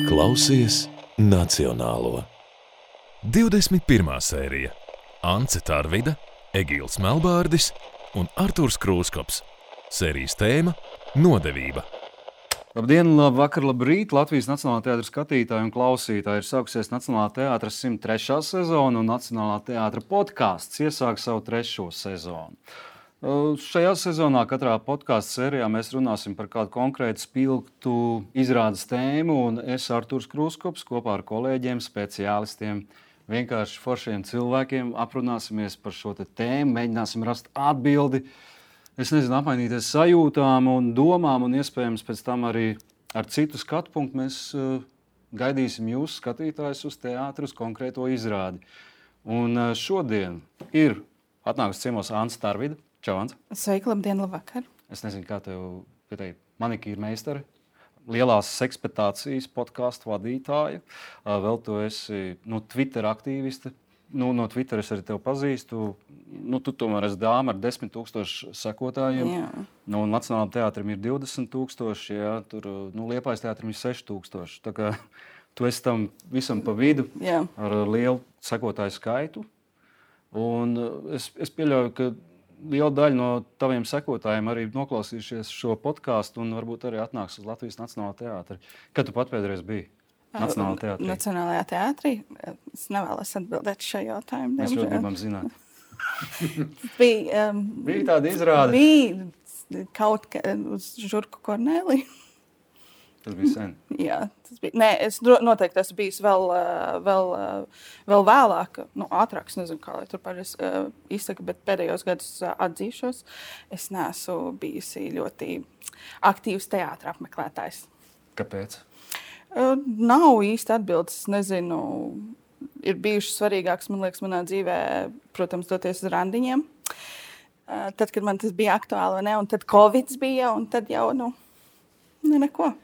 Klausies Nacionālo. 21. sērija. Ance Tarvida, Egīls Melbārdis un Artūrs Krūskops. Sērijas tēma – nodevība. Labdien, labvakar, labrīt! Latvijas Nacionālā teātra skatītāji un klausītāji. Ir sākusies Nacionālā teātra 103. sezona un Nacionālā teātra podkāsts iesāk savu 3. sezonu. Šajā sezonā katrā podkāstu sērijā mēs runāsim par kādu konkrētu spilgtu izrādes tēmu, un es, Artūrs Krūskops, kopā ar kolēģiem, speciālistiem, vienkārši foršiem cilvēkiem aprunāsimies par šo tēmu, mēģināsim rast atbildi, apmainīties sajūtām un domām, un iespējams pēc tam arī ar citu skatu punktu mēs gaidīsim jūs, skatītājus, uz teātru, uz konkrēto izrādi. Un šodien ir atnākusi ciemos Ance Tarvida. Čau, Ance. Sveiki, labdien, labvakar. Es nezinu, kā tev pieteikt, manikīra meistare, lielās sekspectācijas podkāstu vadītāja. Vēl tu esi Twitter aktīviste. No Twitter es arī tevi pazīstu. Tu tomēr esi dāma ar 10 000 sekotājiem. Jā. Nacionālajam teātrim ir 20 000, jā, tur Liepājas teātrim ir 6 000. Tā kā tu esi tam visam pa vidu, jā, ar lielu sekotāju skaitu. Un es pieļauju, ka liela daļa no taviem sekotājiem arī noklausījušies šo podkāstu un varbūt arī atnāks uz Latvijas Nacionālā teātra. Kad tu pat pēdreiz biji Nacionālajā teātrī? Nacionālajā teātrī? Es nevēlos atbildēt šo jautājumu. Mēs ļoti gribam zināt. Bija tāda izrāde? Bija kaut kā uz Žurku Korneliju. Tas bija sen. Jā, tas bija. Nē, es noteikti esmu bijis vēl vēlāk, ātrāk, nezinu, kā lai tur pareizi izsaka, bet pēdējos gadus atzīšos, es neesmu bijusi ļoti aktīvs teātra apmeklētājs. Kāpēc? Nav īsti atbildes, nezinu. Ir bijušas svarīgākas, man liekas, manā dzīvē, protams, doties uz randiņiem. Tad, kad man tas bija aktuāli, vai ne, un tad Covids bija, un tad jau, neko.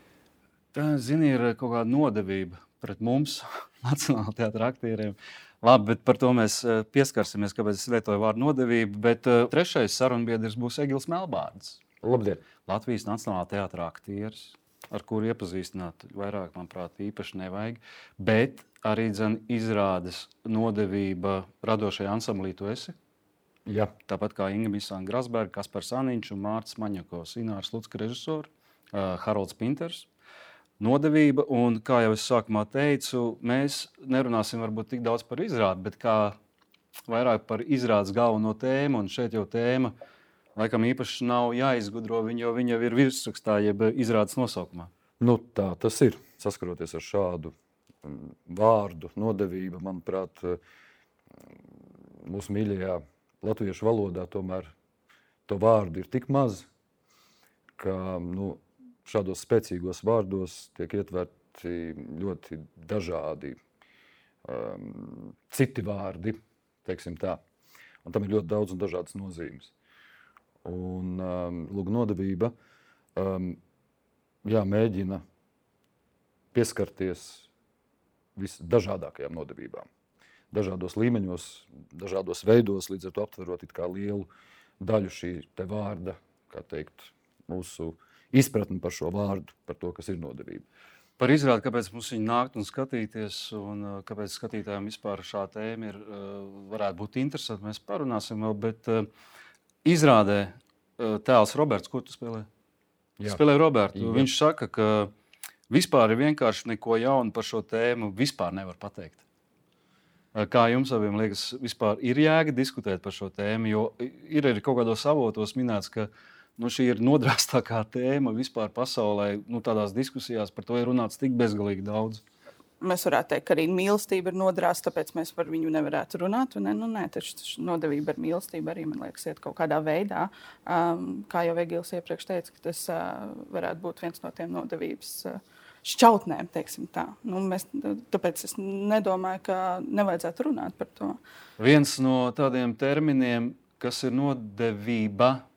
Tā, zini, ir kaut kāda nodevība pret mums, Nacionālā teātra aktieriem. Labi, bet par to mēs pieskarsimies, kāpēc es lietoju vārdu nodevība. Bet trešais sarunbiedrs būs Egīls Melbārdis. Labdien! Latvijas Nacionālā teātra aktieris, ar kuru iepazīstināt vairāk, manuprāt, īpaši nevajag. Bet arī izrādes nodevība radošajā ansamblī tu esi. Jā. Tāpat kā Inga Misāna Grasberga, Kaspars Aniņš un Mārcis Maņakovs, Inārs Lucka režisori, Harolds Pinters. Nodevība, un kā jau es sākumā teicu, mēs nerunāsim varbūt tik daudz par izrādi, bet kā vairāk par izrādes galveno tēmu, un šeit jau tēma laikam īpaši nav jāizgudro, jo viņa jau ir virsrakstā, jeb izrādes nosaukumā. Tā tas ir. Saskaroties ar šādu vārdu, nodevība, manuprāt, mūsu mīļajā latviešu valodā tomēr to vārdu ir tik maz, ka, šādos spēcīgos vārdos tiek ietverti ļoti dažādi citi vārdi, teiksim tā. Un tam ir ļoti daudz un dažādas nozīmes. Un nodevība mēģina pieskarties visdažādākajām nodevībām. Dažādos līmeņos, dažādos veidos, līdz ar to aptverot it kā lielu daļu šī te vārda, kā teikt, mūsu izpratni par šo vārdu, par to, kas ir nodevība. Par izrādi, kāpēc mums viņi nākt un skatīties, un kāpēc skatītājiem vispār šā tēma varētu būt interesanti, mēs parunāsim vēl, bet izrādē tēls Roberts, ko tu spēlē? Jā. Spēlē Robertu. Jā. Viņš saka, ka vispār ir vienkārši neko jaunu par šo tēmu vispār nevar pateikt. Kā jums abiem liekas, vispār ir jēga diskutēt par šo tēmu, jo ir arī kaut kādos avotos minēts, ka šī ir nodrāstākā tēma vispār pasaulē. Tādās diskusijās par to ir runāts tik bezgalīgi daudz. Mēs varētu teikt, ka arī mīlestība ir nodrāsta, tāpēc mēs par viņu nevarētu runāt. Nē, taču nodevība ar mīlestību arī, man liekas, iet kaut kādā veidā. Kā jau Egīls iepriekš teica, ka tas varētu būt viens no tiem nodevības šķautnēm, teiksim tā. Tāpēc es nedomāju, ka nevajadzētu runāt par to. Viens no tādiem terminiem, kas ir nodevība,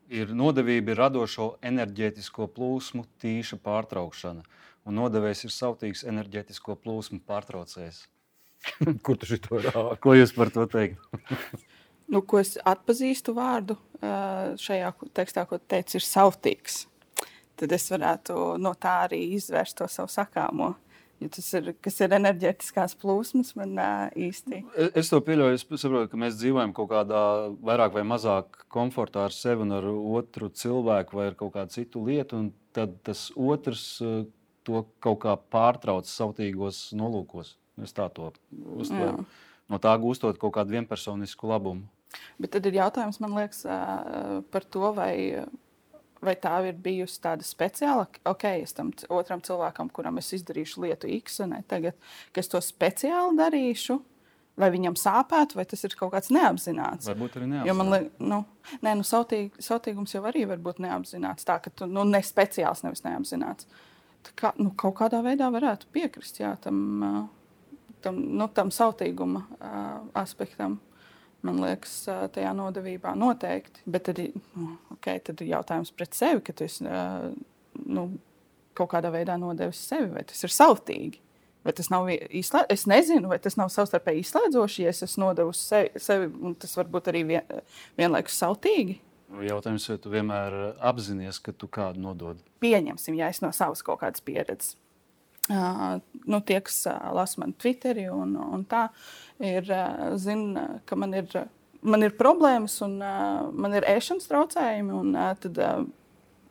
ir radošo enerģētisko plūsmu tīša pārtraukšana. Un nodevējs ir sautīgs enerģētisko plūsmu pārtraucējs. Kur tu šito rādi? Ko jūs par to teikt? Ko es atpazīstu vārdu? šajā tekstā, ko teicu, ir sautīgs, tad es varētu no tā arī izvērst to savu sakāmo. Jo tas ir, kas ir enerģētiskās plūsmas, man īsti. Es to pieļauju, es saprotu, ka mēs dzīvojam kaut kādā vairāk vai mazāk komfortā ar sevi un ar otru cilvēku vai ar kaut kādu citu lietu, un tad tas otrs to kaut kā pārtrauc sautīgos nolūkos. Es tā to uztveru. No tā gūstot kaut kādu vienpersonisku labumu. Bet tad ir jautājums, man liekas, par to, vai tā ir bijusi tāda speciāla, es tam otram cilvēkam, kuram es izdarīšu lietu X, tagad, ka es to speciāli darīšu, vai viņam sāpētu, vai tas ir kaut kāds neapzināts. Varbūt arī neapzināts. Jo man liekas, sautīgums jau arī var būt neapzināts, tā ka tu ne speciāls, nevis neapzināts. Tā kā, kaut kādā veidā varētu piekrist, jā, tam sautīguma aspektam. Man liekas, tajā nodevībā noteikti. Bet tad ir jautājums pret sevi, ka tu esi kaut kādā veidā nodevis sevi. Vai tas ir sautīgi? Vai tas nav es nezinu, vai tas nav savstarpēji izslēdzoši, ja es esmu nodevusi sevi, un tas var būt arī vienlaikus sautīgi. Jautājums, vai tu vienmēr apzinies, ka tu kādu nodod? Pieņemsim, ja es no savas kaut kādas pieredzes. Tie, kas lasa man Twitteri un tā, zina, ka man ir problēmas un man ir ēšanas traucējumi, un tad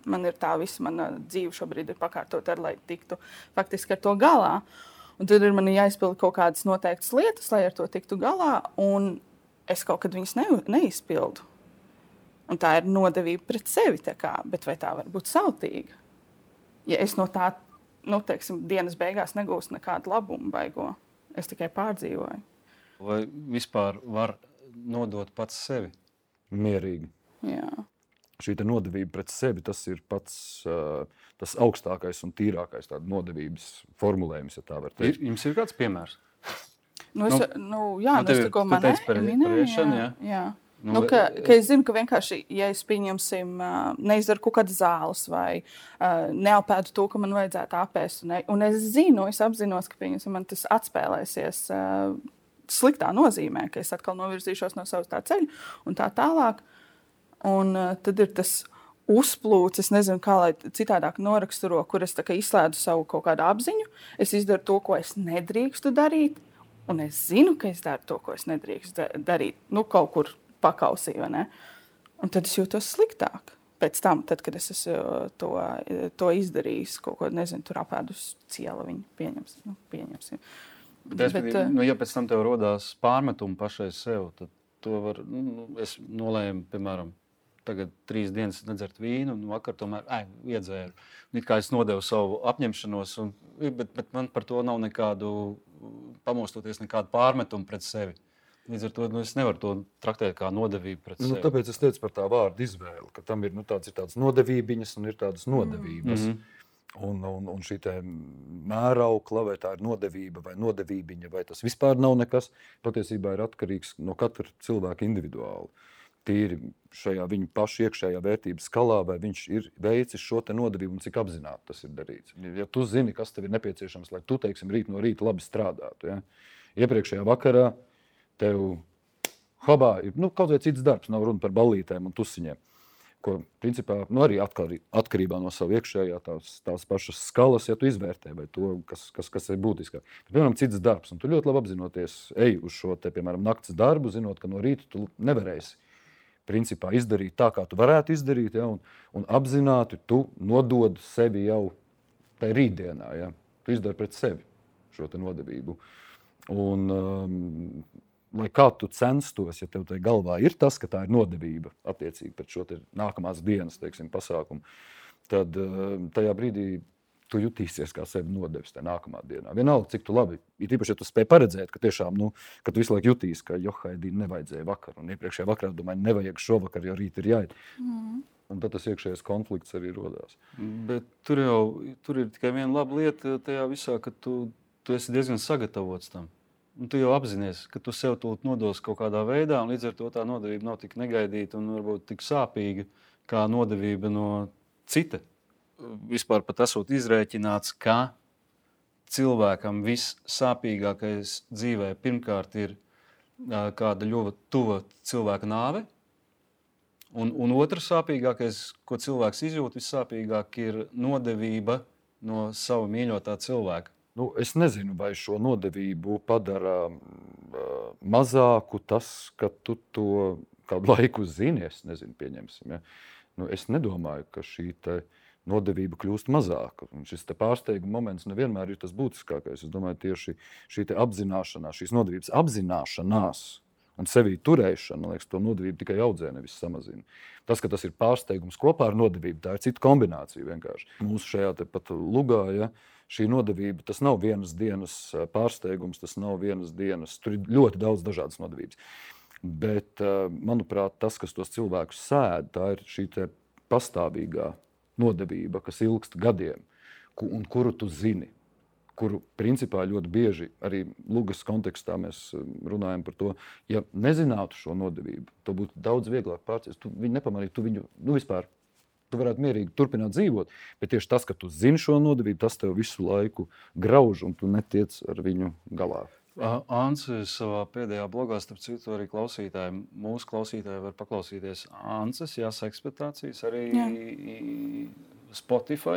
man ir tā visa mana dzīve šobrīd ir pakārtota, lai tiktu faktiski ar to galā. Un tad ir man jāizpilda kaut kādas noteiktas lietas, lai ar to tiktu galā, un es kaut kad viņas neizpildu. Un tā ir nodevība pret sevi, bet vai tā var būt sautīga? Ja es no tā dienas beigās negūstu nekādu labumu baigo. Es tikai pārdzīvoju. Vai vispār var nodot pats sevi? Mierīgi. Jā. Šī nodevība pret sevi, tas ir pats tas augstākais un tīrākais tāda nodevības formulējums, ja tā var teikt. Jums ir kāds piemērs? Es tikko minēju. Jā. Ka es zinu, ka vienkārši, ja es pieņemsim, neizdaru kaut kādas zāles vai neapēdu to, ka man vajadzētu apēst, un es apzinos, ka man tas atspēlēsies sliktā nozīmē, ka es atkal novirzīšos no savas tā ceļa un tā tālāk. Un tad ir tas uzplūcis, nezinu, kā lai citādāk noraksturo, kur es izslēdzu savu kaut kādu apziņu, es izdaru to, ko es nedrīkstu darīt, un es zinu, ka es daru to, ko es nedrīkstu darīt, kaut kur pakausī, vai ne? Un tad es jūtos sliktāk. Pēc tam, kad es esmu to izdarījis, kaut ko, nezinu, tur apēdus ciela viņu pieņemsim. Ja pēc tam tev rodās pārmetumi pašai sev, tad to var, es nolēmu, piemēram, tagad 3 dienas nedzert vīnu, un vakar tomēr iedzēru. It kā es nodevu savu apņemšanos, bet man par to nav nekādu, pamostoties nekādu pārmetumu pret sevi. Līdz ar to es nevaru to traktēt kā nodevību pret sevi. Tāpēc es teicu par tā vārdu izvēli, ka tam ir tādas nodevībiņas un ir tādas nodevības. Un šī mēraukla, vai tā ir nodevība vai nodevībiņa, vai tas vispār nav nekas, patiesībā ir atkarīgs no katra cilvēka individuāli. Tīri šajā viņa paša iekšējā vērtības skalā, vai viņš ir veicis šo nodevību un cik apzināti tas ir darīts. Ja tu zini, kas tev ir nepieciešams, lai tu, teiksim, rīt no rīta labi strādātu, ja? Iepriekšējā vakarā tev hobā ir kaut vai cits darbs, nav runa par ballītēm un tusiņiem, ko principā arī atkarībā no savu iekšējā tās pašas skalas, ja tu izvērtē, vai to, kas ir būtiskāk. Bet, piemēram, cits darbs, un tu ļoti labi apzinoties, ej uz šo piemēram, nakts darbu, zinot, ka no rīta tu nevarēsi principā izdarīt tā, kā tu varētu izdarīt, ja, un apzināti tu nodod sevi jau tai rītdienā, ja. Tu izdari pret sevi šo nodevību. Un lai kā tu censtos, ja tev tai galvā ir tas, ka tā ir nodevība attiecīgi pret šo nākamās dienas, teiksim, pasākumu, tad tajā brīdī tu jutīsies kā sevi nodevis tajā nākamā dienā. Vienalga, cik tu labi, ir īpaši, ja tu spēj paredzēt, ka tiešām, ka tu visu laiku jutīs, ka johaidī nevajadzēja vakar, un iepriekšējā vakarā domāju, nevajag šovakar, jo rīt ir jāiet. Un tad tas iekšējais konflikts arī rodās. Bet tur ir tikai viena laba lieta tajā visā, ka tu esi diezgan sagatavots tam. Un tu jau apzinies, ka tu sev tūlīt nodos kaut kādā veidā, un līdz ar to tā nodevība nav tik negaidīta un varbūt tik sāpīga kā nodevība no cita. Vispār pat esot izrēķināts, ka cilvēkam vissāpīgākais dzīvē pirmkārt ir kāda ļoti tuva cilvēka nāve. Un otrs sāpīgākais, ko cilvēks izjūt, vissāpīgāk ir nodevība no sava mīļotā cilvēka. Nu, es nezinu, vai šo nodevību padara mazāku tas, ka tu to kādu laiku zini. Es nezinu, pieņemsim. Ja? Nu, es nedomāju, ka šī nodevība kļūst mazāka. Un šis pārsteiguma moments nevienmēr ir tas būtiskākais. Es domāju, tieši šī apzināšanās, šīs nodevības apzināšanās un sevī turēšana, liekas, to nodevību tikai audzē, nevis samazina. Tas, ka tas ir pārsteigums kopā ar nodevību, tā ir cita kombinācija vienkārši. Mūsu šajā pat lugā, ja, šī nodevība, tas nav vienas dienas pārsteigums, tas nav vienas dienas, tur ir ļoti daudz dažādas nodevības. Bet, manuprāt, tas, kas tos cilvēkus sēd, tā ir šī pastāvīgā nodevība, kas ilgst gadiem, un kuru tu zini, kuru principā ļoti bieži arī lugas kontekstā mēs runājam par to, ja nezinātu šo nodevību, to būtu daudz vieglāk pārciest. Tu viņu nepamanītu, tu viņu vispār, tu varētu mierīgi turpināt dzīvot, bet tieši tas, ka tu zini šo nodevību, tas tev visu laiku grauž un tu netiec ar viņu galā. Ancis savā pēdējā blogā, starp citu, arī mūsu klausītāji var paklausīties Ancis, eksploatācijas arī Spotify,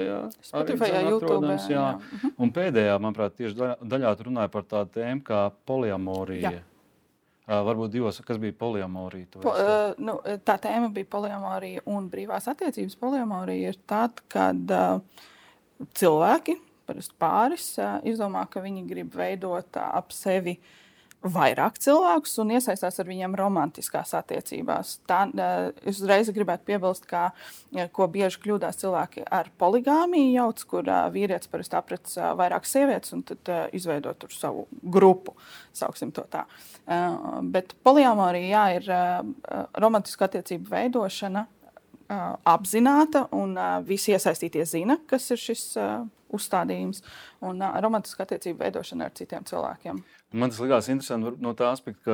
YouTube. Jā. Un pēdējā, manuprāt, tieši daļā tu runāja par tādu tēmu kā poliamorija. Varbūt divos, kas bija poliamorija? Tā tēma bija poliamorija un brīvās attiecības. Poliamorija ir tad, kad cilvēki, parasti pāris, izdomā, ka viņi grib veidot ap sevi vairāk cilvēkus un iesaistās ar viņiem romantiskās attiecībās. Es uzreiz gribētu piebilst, ko bieži kļūdās cilvēki ar poligāmiju jauc, kur vīrietis parasti aprec vairākas sievietes un tad izveido tur savu grupu, sauksim to tā. Bet poliamorija, ir romantiska attiecību veidošana apzināta un visi iesaistītie zina, kas ir šis uzstādījums un romantiska attiecību veidošana ar citiem cilvēkiem. Man tas likās interesanti no tā aspekta, ka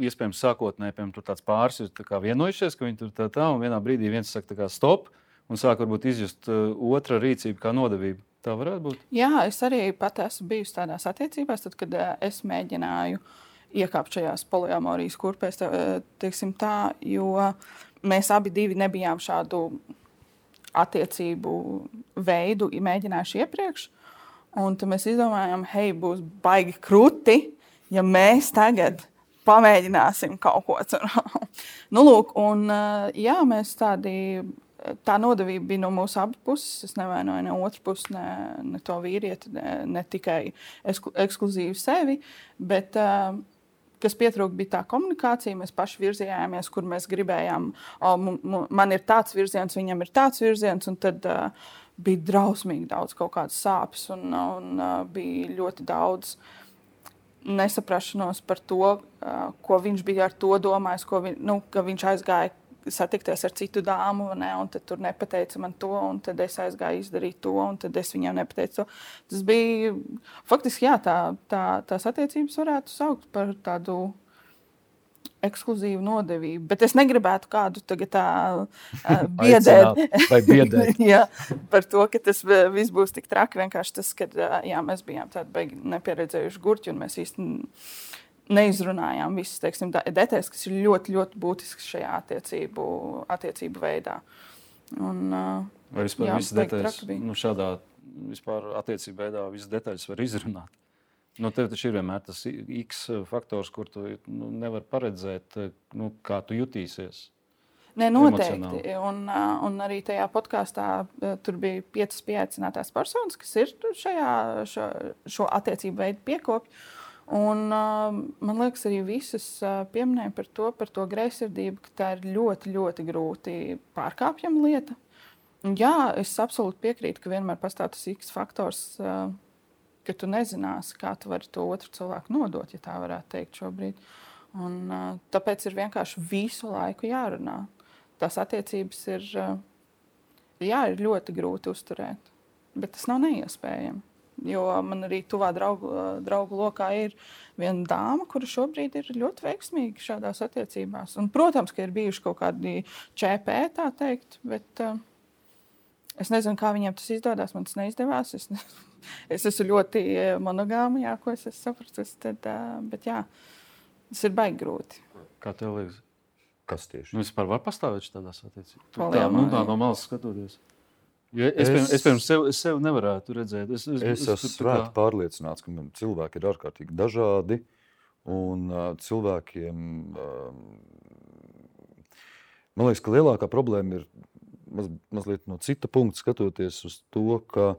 iespējams sākotnēji tur tāds pāris ir vienojušies, ka viņi tur tā un vienā brīdī viens saka stop un sāk varbūt izjust otra rīcību kā nodevību. Tā varētu būt? Jā, es arī pat esmu bijusi tādās attiecībās, tad, kad es mēģināju iekāpt šajās poliamorijas kurpēs, teiksim tā, jo mēs abi divi nebijām šādu attiecību veidu mēģinājuši iepriekš. Un tad mēs izdomājām, hei, būs baigi kruti, ja mēs tagad pamēģināsim kaut ko. Lūk, un jā, mēs tā nodevība bija no mūsu abu puses. Es nevainoju ne otru pusi, ne to vīrieti, ne tikai ekskluzīvi sevi, bet kas pietrūka, bija tā komunikācija. Mēs paši virzījāmies, kur mēs gribējām. Man ir tāds virziens, viņam ir tāds virziens, un tad bija drausmīgi daudz kaut kādas sāpes, un bija ļoti daudz nesaprašanos par to, ko viņš bija ar to domājis, ka viņš aizgāja satikties ar citu dāmu, un tad tur nepateica man to, un tad es aizgāju izdarīt to, un tad es viņam nepateicu to. Tas bija, faktiski, jā, tās attiecības varētu saukt par tādu ekskluzīvu nodevību, bet es negribētu kādu tagad biedēt. Jā, par to, ka tas viss būs tik traki, vienkārši tas, ka mēs bijām tādi beigi nepieredzējuši gurķi, un mēs īsti neizrunājām visas, teiksim, detaļas, kas ir ļoti, ļoti būtisks šajā attiecību veidā. Vai vispār visas detaļas, šādā vispār attiecību veidā visas detaļas var izrunāt? Tev taču ir vienmēr tas X faktors, kur tu nevar paredzēt, kā tu jutīsies. Nē, noteikti. Un arī tajā podkāstā tur bija 5 pieaicinātās personas, kas ir šo attiecību veidu piekopji. Un, man liekas, arī visas pieminēja par to greizsirdību, ka tā ir ļoti, ļoti grūti pārkāpjama lieta. Un, jā, es absolūti piekrītu, ka vienmēr pastāv tas X faktors, ka tu nezināsi, kā tu vari to otru cilvēku nodot, ja tā varētu teikt šobrīd. Un, tāpēc ir vienkārši visu laiku jārunā. Tās attiecības ir ļoti grūti uzturēt, bet tas nav neiespējami. Jo man arī tuvā draugu lokā ir viena dāma, kura šobrīd ir ļoti veiksmīga šādās attiecībās. Un, protams, ka ir bijuši kaut kādi ČP, tā teikt, bet es nezinu, kā viņiem tas izdodas. Man tas neizdevās. Es esmu ļoti monogāma, jā, ko es sapratu. Bet jā, tas ir baigi grūti. Kā tev liekas? Kas tieši? Vispār var pastāvēt šādās attiecībās? Poliamorija. Tā no malas skatoties. Jo es pirms sev nevarētu redzēt. Es esmu svēti pārliecināts, ka cilvēki ir ārkārtīgi dažādi. Un cilvēkiem, man liekas, ka lielākā problēma ir mazliet no cita punkta skatoties uz to, ka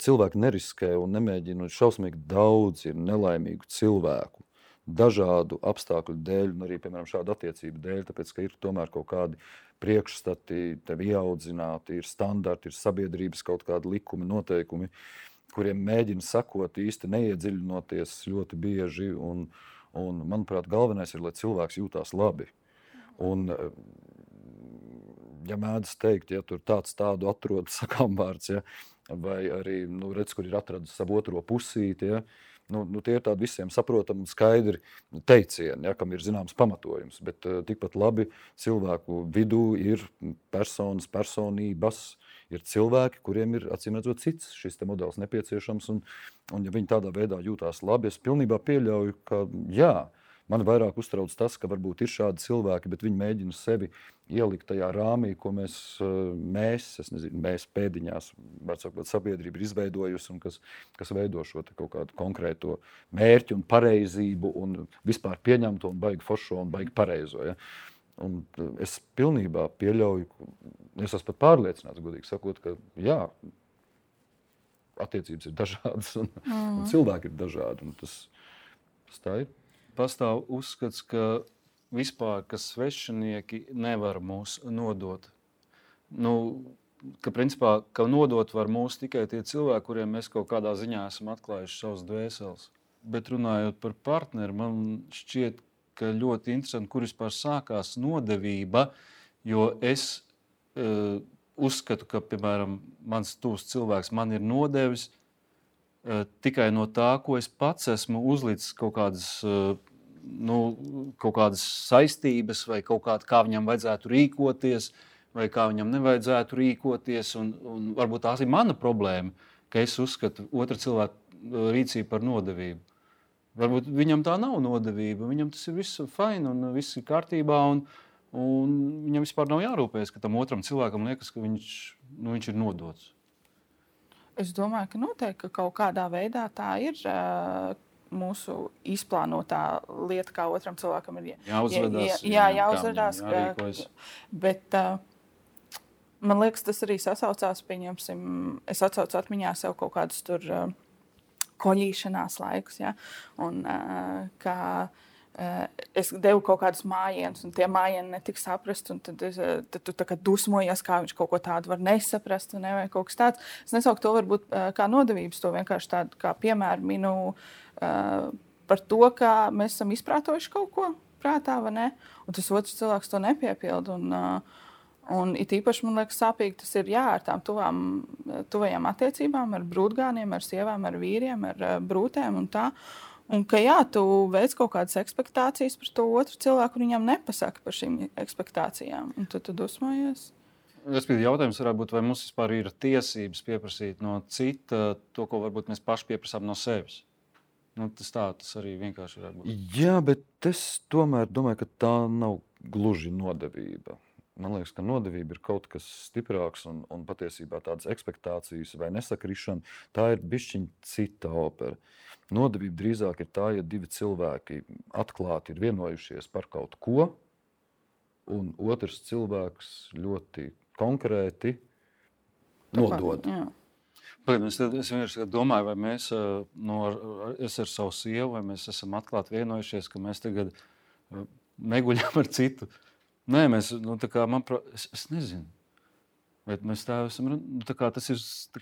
cilvēki neriskē un nemēģina. Šausmīgi daudz ir nelaimīgu cilvēku. Dažādu apstākļu dēļ, un arī, piemēram, šādu attiecību dēļ, tāpēc, ka ir tomēr kaut kādi priekšstati, tevi ieaudzināti, ir standarti, ir sabiedrības kaut kādi likumi, noteikumi, kuriem mēģina sakot īsti neiedziļinoties ļoti bieži. Un, manuprāt, galvenais ir, lai cilvēks jūtās labi. Un, ja mēdz teikt, ja tur tādu atrod sakām vārds, ja, vai arī, redz, kur ir atradis savu otro pusīti, ja, tie ir tādi visiem saprotami un skaidri teicieni, ja, kam ir zināms pamatojums. Bet tikpat labi cilvēku vidū ir personas, personības, ir cilvēki, kuriem ir acīmredzot cits šis te modelis nepieciešams. Un ja viņi tādā veidā jūtās labi, es pilnībā pieļauju, ka jā, man vairāk uztrauc tas, ka varbūt ir šādi cilvēki, bet viņi mēģina sevi ielikt tajā rāmī, ko mēs pēdiņās, var sakot, sabiedrība ir izveidojusi un kas veido šo kaut kādu konkrēto mērķi un pareizību un vispār pieņemto un baigi foršo un baigi pareizo. Ja? Un es pilnībā pieļauju, es esmu pat pārliecināts, godīgi sakot, ka jā, attiecības ir dažādas un cilvēki ir dažādi. Un tas tā ir. Pastāv uzskats, ka vispār, ka svešinieki nevar mūs nodot. Ka principā, ka nodot var mūs tikai tie cilvēki, kuriem mēs kaut kādā ziņā esam atklājuši savus dvēseles. Bet runājot par partneri, man šķiet, ka ļoti interesanti, kur vispār sākās nodevība, jo es uzskatu, ka, piemēram, mans tuvs cilvēks man ir nodevis tikai no tā, ko es pats esmu uzlicis kaut kādas saistības vai kā viņam vajadzētu rīkoties vai kā viņam nevajadzētu rīkoties. Un varbūt tās ir mana problēma, ka es uzskatu otra cilvēka rīcību par nodevību. Varbūt viņam tā nav nodevība, viņam tas ir viss fine un viss ir kārtībā un viņam vispār nav jārūpējas, ka tam otram cilvēkam liekas, ka viņš ir nodots. Es domāju, ka noteikti ka kaut kādā veidā tā ir mūsu izplānotā lieta, kā otram cilvēkam ir jāuzvedās. Jāuzvedās. Bet man liekas, tas arī sasaucās, pieņemsim, es atsaucu atmiņā sev kaut kādus tur koļīšanās laikus, ja? Un kā es devu kaut kādus mājienus, un tie mājieni netika saprast, un tad tu tā kā dusmojies, kā viņš kaut ko tādu var nesaprast, vai kaut kas tāds. Es nesauku to varbūt kā nodevības, to vienkārši tādu kā piemēru minu par to, kā mēs esam izprātojuši kaut ko prātā, vai ne? Un tas otrs cilvēks to nepiepilda, un it īpaši, man liekas, sāpīgi tas ir ar tām tuvajām attiecībām, ar brūtgāniem, ar sievām, ar vīriem, ar brūtēm un tā. Un ka jā, tu veic kaut kādas ekspektācijas par to otru cilvēku, un viņam nepasaka par šīm ekspektācijām. Un tu dusmojies. Jautājums varētu būt, vai mums vispār ir tiesības pieprasīt no cita to, ko varbūt mēs paši pieprasām no sevis. Tas arī vienkārši varētu būt. Jā, bet es tomēr domāju, ka tā nav gluži nodevība. Man liekas, ka nodevība ir kaut kas stiprāks un patiesībā tādas ekspektācijas vai nesakrišana, tā ir bišķiņ cita opera. Nodevība drīzāk ir tā, ja divi cilvēki atklāti ir vienojušies par kaut ko, un otrs cilvēks ļoti konkrēti nodod. Es vienkārši domāju, vai mēs es ar savu sievu, vai mēs esam atklāti vienojušies, ka mēs tagad neguļam ar citu. Nē, mēs, es nezinu. Bet mēs tā esam, tas ir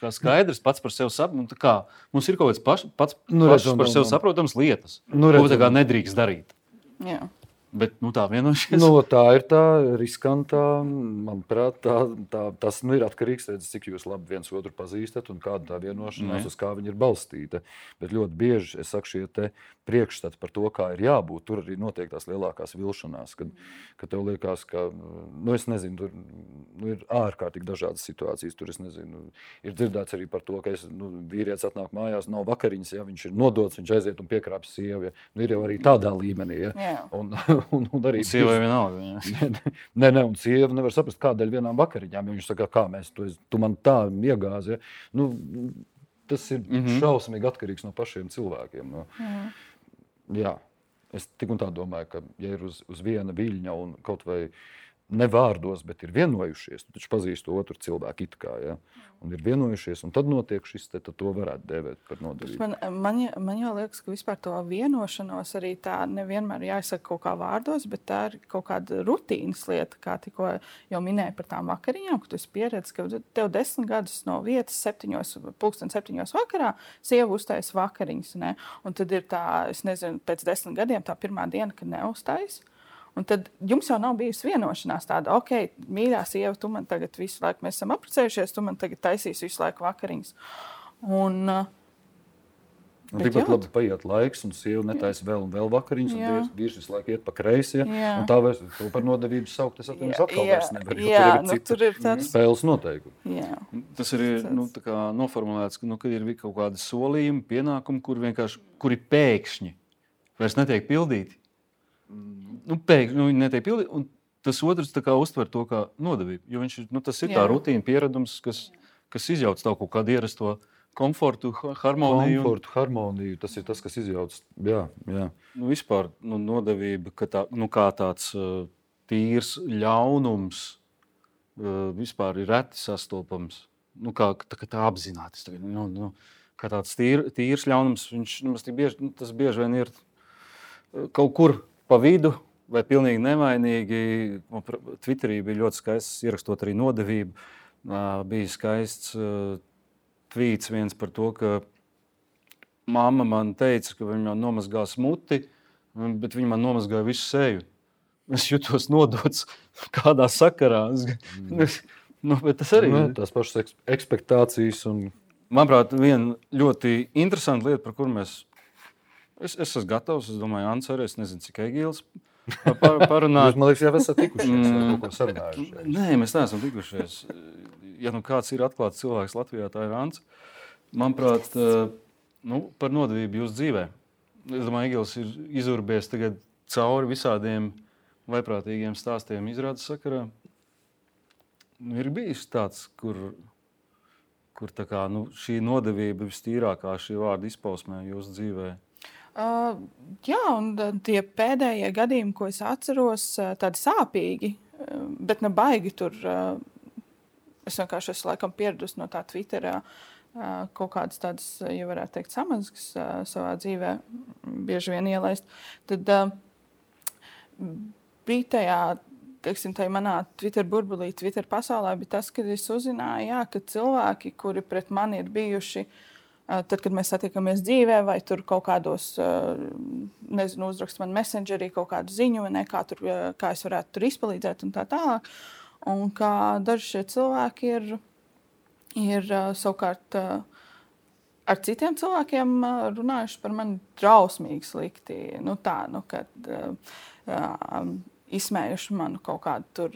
skaidrs pats par sevi saprotams. Mums ir kaut kāds pats par sevi saprotams lietas, ko nedrīkst darīt. Jā. Bet tā vienošies. Tā ir tā riskantā, manuprāt, tas ir atkarīgs, cik jūs labi viens otru pazīstat un kāda tā vienošanās, uz kā viņa ir balstīta. Bet ļoti bieži, es saku, šie te priekšstati par to, kā ir jābūt, tur arī notiek tās lielākās vilšanās, kad tev liekas, ka, es nezinu, tur ir ārkārtīgi dažādas situācijas, tur es nezinu, ir dzirdēts arī par to, ka vīrietis atnāk mājās, nav vakariņas, ja viņš ir nodots, viņš aiziet un piekrāpjas sievu, ja. Ir jau arī tādā līmenī, ja. un arī Sievai vienalga. Nē, un sieva nevar saprast, kādēļ vienām vakariņām. Viņš saka, kā mēs tu man tā iegāzi. Ja? Tas ir šausmīgi atkarīgs no pašiem cilvēkiem. Jā, es tik un tā domāju, ka ja ir uz viena viļņa un kaut vai ne vārdos, bet ir vienojušies, tu taču pazīsti otru cilvēku it kā, ja? Un ir vienojušies, un tad notiek šis, tad to varētu dēvēt par nodevību. Man jau liekas, ka vispār to vienošanos arī tā nevienmēr jāizsaka kaut kā vārdos, bet tā ir kaut kāda rutīnas lieta, kā tikko jau minēju par tām vakariņām, ka tu esi pieredzis, ka tev 10 gadus no vietas 7 vakarā sieva uztais vakariņas, ne? Un tad ir tā, es nezinu, pēc 10 gadiem tā pirmā diena, kad neuztais. Un tad jums jau nav bijusi vienošanās tāda, ok, mīļā sieva, tu man tagad visu laiku, mēs esam apprecējušies, tu man tagad taisīsi visu laiku vakariņas. Un tikpat labi paiet laiks, un sieva netaisa vēl un vēl vakariņas, un vīrs visu laiku iet pa kreisi, ja? Un tā vairs to par nodevību saukt, es atkal vairs nevaru, jo tur ir cita spēles noteikumi. Jā. Tas ir tā kā noformulēts, ka ir kaut kādi solījumi, pienākumi, kuri pēkšņi vairs netiek pildīti. Pēkšņi netiek pildīti, un tas otrs tā kā uztver to kā nodevību. Jo tas ir tā rutīna, pieredums, kas izjauc tavu kaut kādu ierasto komfortu, harmoniju. Tas ir tas, kas izjauc. Jā. Vispār nodevība, kā tāds tīrs ļaunums vispār ir reti sastopams. Tā apzināti. Kā tāds tīrs ļaunums, tas bieži vien ir kaut kur pa vidu, vai pilnīgi nevainīgi. Twitterī bija ļoti skaists, ierakstot arī nodevību. Bija skaists tvīts viens par to, ka mamma man teica, ka viņa man nomazgās muti, bet viņa man nomazgāja visu seju. Es jutos nodots kādā sakarā. Bet tas arī ir. Tās pašas ekspektācijas. Manuprāt, viena ļoti interesanta lieta, par kuru es esmu gatavs. Es domāju, Ants arī, es nezinu, cik Egīls parunāt. Jūs, man liekas, jau esat tikušies vai kaut ko sarunājušies. Nē, mēs neesam tikušies. Ja kāds ir atklāts cilvēks Latvijā, tā ir Ants. Manuprāt, par nodevību jūsu dzīvē. Es domāju, Egīls ir izurbējies tagad cauri visādiem vaiprātīgiem stāstiem izrādes sakarā. Ir bijis tāds, kur tā kā, šī nodevība vistīrākā šī vārda izpausmē jūsu dzīvē. Jā, un tie pēdējie gadījumi, ko es atceros, tādi sāpīgi, bet ne baigi tur. Es vienkārši esmu laikam pieradusi no tā Twitterā kaut kādas tādas, ja varētu teikt, samazgas savā dzīvē bieži vien ielaist. Tad bija tajā, teiksim, tajā manā Twitter burbulī, Twitter pasaulē, bija tas, kad es uzzināju, ka cilvēki, kuri pret mani ir bijuši, tad, kad mēs satiekamies dzīvē, vai tur kaut kādos, nezinu, uzrakst man messengerī kaut kādu ziņu, vai ne, kā es varētu tur izpalīdzēt un tā tālāk. Un kā daži šie cilvēki ir savukārt ar citiem cilvēkiem runājuši par mani drausmīgi slikti. Kad izsmējuši manu kaut kādu tur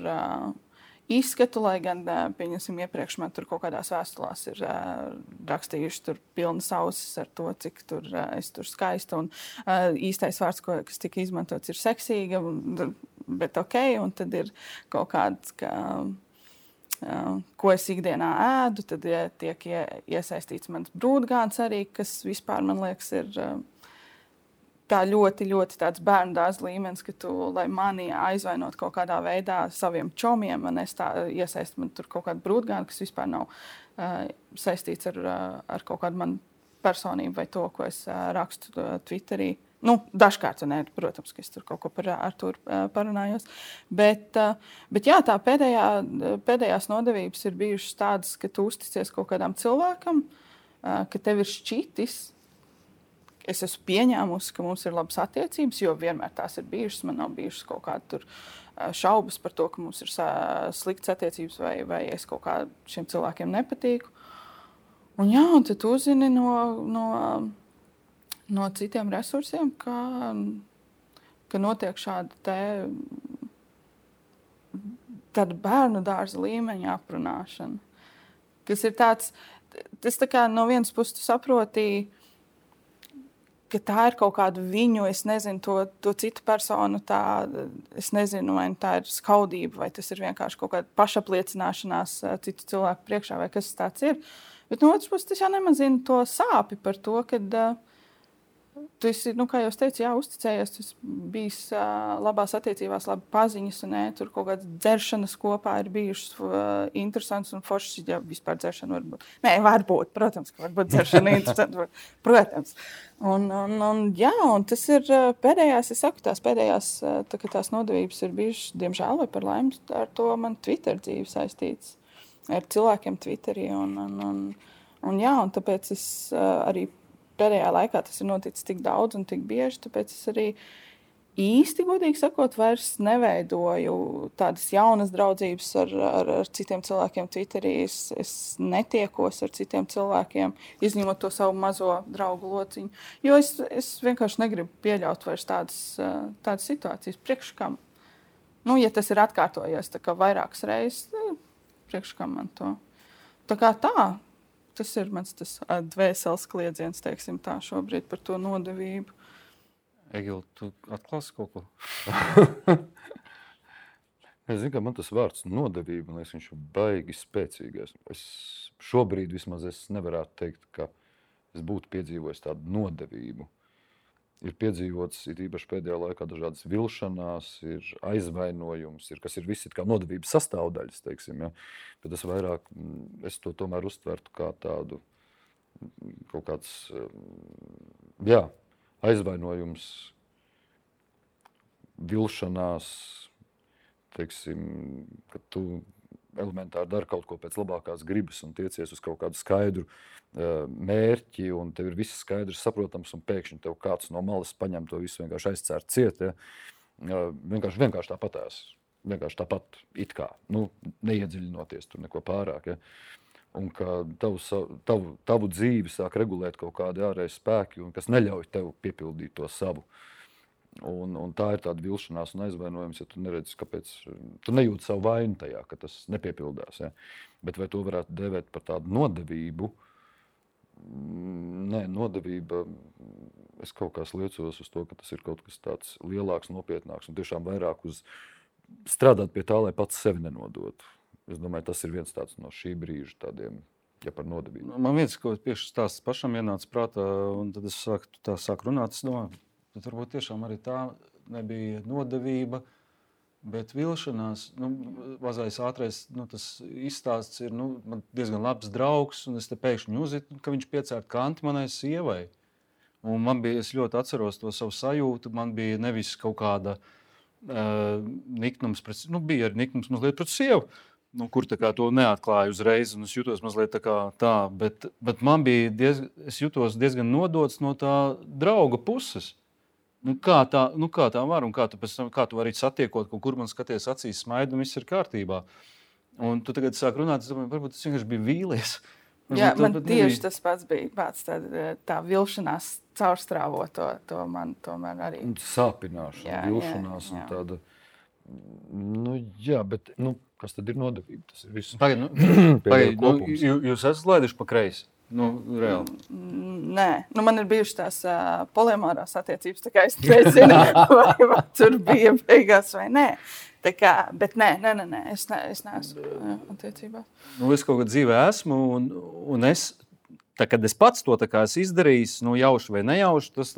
izskatu, lai gan, pieņemsim, iepriekš man tur kaut kādās vēstulās ir rakstījuši tur pilnas ausis ar to, cik tur es tur skaista. Un īstais vārds, kas tika izmantots, ir seksīga, bet ok, un tad ir kaut kāds, ko es ikdienā ēdu, tad tiek iesaistīts mans brūdgāns arī, kas vispār, man liekas, ir tā ļoti, ļoti tāds bērnu dārza līmenis, ka tu, lai mani aizvainot kaut kādā veidā saviem čomiem, man es tā iesaistu man tur kaut kādu brūdgānu, kas vispār nav saistīts ar kaut kādu manu personību vai to, ko es rakstu Twitterī. Dažkārt, protams, ka es tur kaut ko par Artūru parunājos. Bet jā, tā pēdējās nodevības ir bijušas tādas, ka tu uzticies kaut kādam cilvēkam, ka tev ir šķitis. Es esmu pieņēmusi, ka mums ir labas attiecības, jo vienmēr tās ir bijušas. Man nav bijušas kaut kāda šaubas par to, ka mums ir sliktas attiecības vai es kaut kā šiem cilvēkiem nepatīku. Un tad tu uzzini no citiem resursiem, ka notiek tāda bērnu dārza līmeņa aprunāšana. Kas ir tāds, tas tā kā no vienas puses tu saproti, ka tā ir kaut kāda viņu, es nezinu, to citu personu, es nezinu, vai tā ir skaudība, vai tas ir vienkārši kaut kāda pašapliecināšanās citu cilvēku priekšā, vai kas tāds ir. Bet no otras puses, tas jau nemazina to sāpi par to, ka tu esi, kā jau es teicu, uzticējies, tu esi bijis labās attiecībās, labi paziņas, un tur kaut kādas dzeršanas kopā ir bijušas interesants un foršas, ja vispār dzeršana var būt. Nē, varbūt, protams, ka varbūt dzeršana interesanta, protams. Un tas ir pēdējās, es saku, tās pēdējās, tās nodevības ir bijušas, diemžēl, vai par laimi, ar to man Twitter dzīve saistīts, ar cilvēkiem Twitterī, un tāpēc es arī pēdējā laikā tas ir noticis tik daudz un tik bieži, tāpēc es arī īsti, godīgi sakot, vairs neveidoju tādas jaunas draudzības ar citiem cilvēkiem Twitterī. Es netiekos ar citiem cilvēkiem, izņemot to savu mazo draugu lociņu, jo es vienkārši negribu pieļaut vairs tādas situācijas. Priekš kam? Ja tas ir atkārtojies tā kā vairākas reizes, priekš kam man to? Tā kā tā. Tas ir mans dvēseles kliedziens, teiksim tā, šobrīd par to nodevību. Egil, tu atklāsi kaut ko? Es zinu, ka man tas vārds nodevība, man liekas, viņš ir baigi spēcīgais. Šobrīd vismaz es nevarētu teikt, ka es būtu piedzīvojis tādu nodevību. Ir piedzīvots, ir īpaši pēdējā laikā dažādas vilšanās, ir aizvainojums, kas ir visi kā nodevības sastāvdaļas, teiksim, ja. Bet es to tomēr uztvertu kā tādu kaut kāds, aizvainojums, vilšanās, teiksim, ka tu elementāri dari kaut ko pēc labākās gribas un tiecies uz kaut kādu skaidru mērķi, un tev ir viss skaidrs, saprotams, un pēkšņi tev kāds no malas paņem to visu vienkārši aizcērt ciet. Ja? Vienkārši tāpatās. Vienkārši tāpat it kā. Neiedziļinoties tur neko pārāk. Ja? Un ka tavu dzīvi sāk regulēt kaut kādi ārēji spēki, un kas neļauj tev piepildīt to savu. Un tā ir tāda vilšanās un aizvainojums, ja tu neredzi, kāpēc tu nejūti savu vainu tajā, ka tas nepiepildās. Ja? Bet vai to varētu dēvēt par tādu nodevību? Nē, nodevība, es kaut kā liecos uz to, ka tas ir kaut kas tāds lielāks, nopietnāks un tiešām vairāk uz strādāt pie tā, lai pats sevi nenodotu. Es domāju, tas ir viens tāds no šī brīža tādiem, ja par nodevību. Man viens, ko tieši stāsts pašam ienāca prātā, un tad es sāku runāt, es domāju, tad varbūt tiešām arī tā nebija nodevība, bet vilšanās, mazais ātrais, tas izstāsts ir, man diezgan labs draugs, un es te pēkšņi uzzinu, ka viņš piecērt kanti manai sievai. Un es ļoti atceros to savu sajūtu, man bija nevis kaut kāda niknums, bija arī niknums mazliet pret sievu, kur tā kā to neatklāju uzreiz, un es jutos mazliet tā, bet man bija es jutos diezgan nodots no tā drauga puses. Kā tā var, un kā tu vari satiekot, kur man skaties acīs smaida, un viss ir kārtībā. Un tu tagad sāk runāt, es domāju, varbūt tas vienkārši bija vīlies. Jā, man tieši tas pats bija pats tā vilšanās caurstrāvot to man tomēr arī. Un sāpināšana, vilšanās un tāda, bet, kas tad ir nodevība? Tas ir viss. Pagaid, jūs esat laiduši pa kreisi? Reāli. Nē, man ir bijušas tās polimārās attiecības, tā kā es nezinu, vai tur bija beigās vai nē. Tā kā, bet nē, es neesmu attiecībā. Es kaut kad dzīvē esmu, un kad es pats to esmu izdarījis, jauši vai nejauši, tas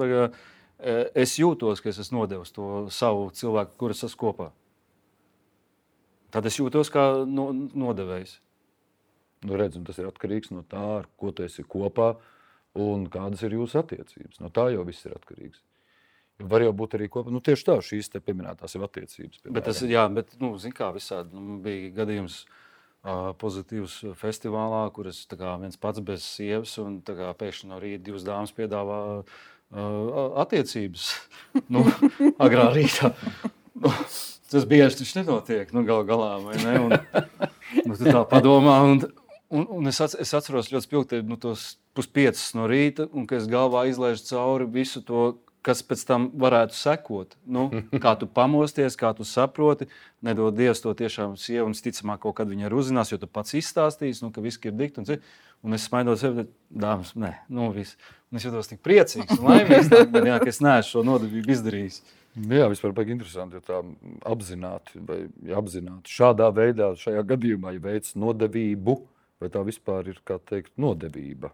es jūtos, ka es esmu nodevis to savu cilvēku, kuras esmu kopā. Tad es jūtos kā nodevējs. Redz, un tas ir atkarīgs no tā, ar ko tu esi kopā un kādas ir jūsu attiecības. No tā jau viss ir atkarīgs. Var jau būt arī kopā, tieši tā, šīs te pieminētās jau attiecības. Bet tas, zin kā visādi, bija gadījums pozitīvs festivālā, kur es viens pats bez sievas, un pēkšņi no rīta divas dāmas piedāvā attiecības. Agrā rītā. Tas bieži taču nenotiek, galā, vai ne? Un tu tā padomā, un es atceros ļoti spilgti tos 4:30 no rīta, un ka es galvā izlaižu cauri visu to kas pēc tam varētu sekot. Nu, kā tu pamosties, kā tu saproti, nedod Dievs to tiešām sievu, un ticamāk kaut kad viņa arī uzzinās, jo tu pats izstāstīsi, ka viss ir dikti. Un es smaidot sevi, dāmas, nē, viss. Un es jūtos tik priecīgs un laimīgs, ka es neesmu šo nodevību izdarījis. Jā, vispār baigi interesanti, ja tā apzināti šādā veidā, šajā gadījumā, ja veic nodevību, vai tā vispār ir, kā teikt, nodevība.